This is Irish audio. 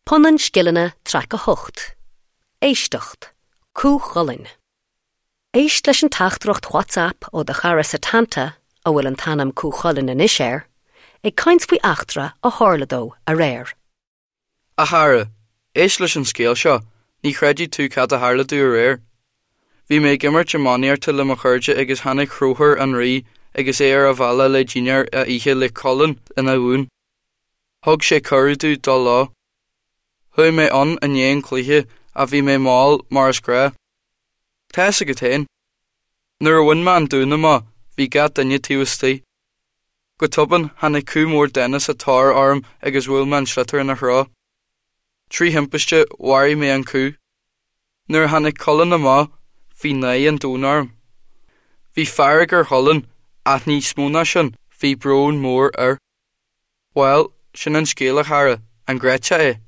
Punann Scileanna Traic 8, Éisteacht, Cú Chulainn. Éist leis an teachtaireacht WhatsApp ó do chara Setanta, a bhfuil an t-ainm Cú Chulainn anois air, ag caint faoi eachtra a tharla dó aréir. A chara, éist leis an scéal seo, ní chreidfidh tú cad a tharla domh aréir. Bhí mé ag imirt iománaíochta le mo chairde agus tháinig Conchúr an Rí agus é ar a bhealach le dinnéar a ithe le Culann ina dhún. Thug sé cuireadh domh dul leo. Chuaigh mé ann i ndiaidh an chluiche ach bhí mé mall mar is gnáth. Tá fhios agat féin. Nuair a bhain mé an dún amach bhí gach duine taobh istigh. Go tobann tháinig cú mór dána sa tóir orm agus bhuail mé an sliotar ina threo. Trí thimpiste mharaigh mé an cú. Nuair a tháinig Culann amach bhí náire an domhain orm. Bhí fearg ar Chulann ach níos mó ná sin bhí brón mór air. Bhuel, sin an scéal a chara, an gcreidfeá é?